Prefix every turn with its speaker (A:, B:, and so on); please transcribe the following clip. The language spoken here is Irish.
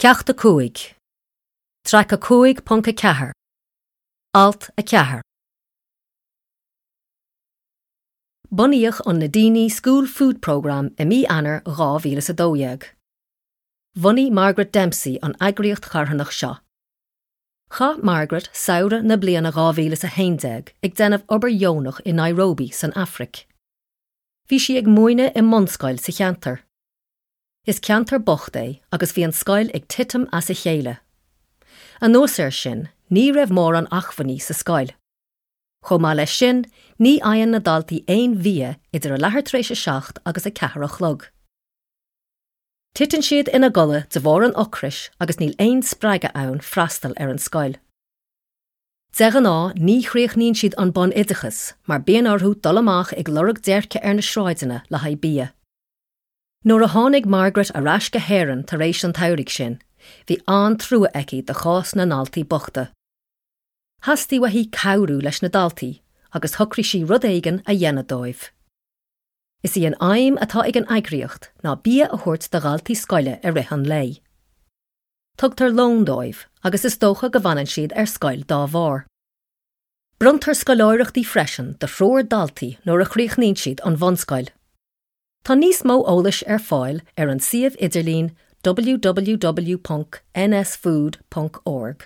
A: Ceacht 5, Traic 5.4, Alt 4. Bunaíodh an Nadini School Food Programme i mí Eanáir 2012. Bhunaigh Margaret Dempsey an eagraíocht charthanach seo. Chaith Margaret samhradh na bliana 2011 ag déanamh obair dheonach i Nairobi san Afraic. Bhí sí ag múineadh i mbunscoil sa cheantar. Is ceantar bocht é agus bhí an scoil ag titim as a chéile. Anuas air sin, ní raibh mórán acmhainní sa scoil. Chomh maith leis sin, ní fhaigheann na daltaí aon bhia idir a leathuair tar éis a 7 agus a 4 a chlog. Titeann siad ina gcodladh de bharr an ocrais agus níl aon spreagadh ann freastal ar an scoil. De ghnáth ní chríochnaíonn siad an bunoideachas mar bíonn orthu dul amach ag lorg déirce ar na sráideanna le haghaidh bia. Nuair a tháinig Margaret ar ais go hÉirinn tar éis an tsamhraidh sin, bhí an-trua aici do chás na ndaltaí bochta. Theastaigh uaithi cabhrú leis na daltaí agus shocraigh sí rud éigin a dhéanamh dóibh. Is í an aidhm atá ag an eagraíocht ná bia a thabhairt do dhaltaí scoile i rith an lae. Tugtar lón dóibh agus is dócha go bhfanann siad ar scoil dá bharr. Bronntar scoláireachtaí freisin do thriúr daltaí nuair a chríochnaíonn siad an bhunscoil. Tá níos mó eolais ar fáil ar an suíomh idirlín www.nsfood.org.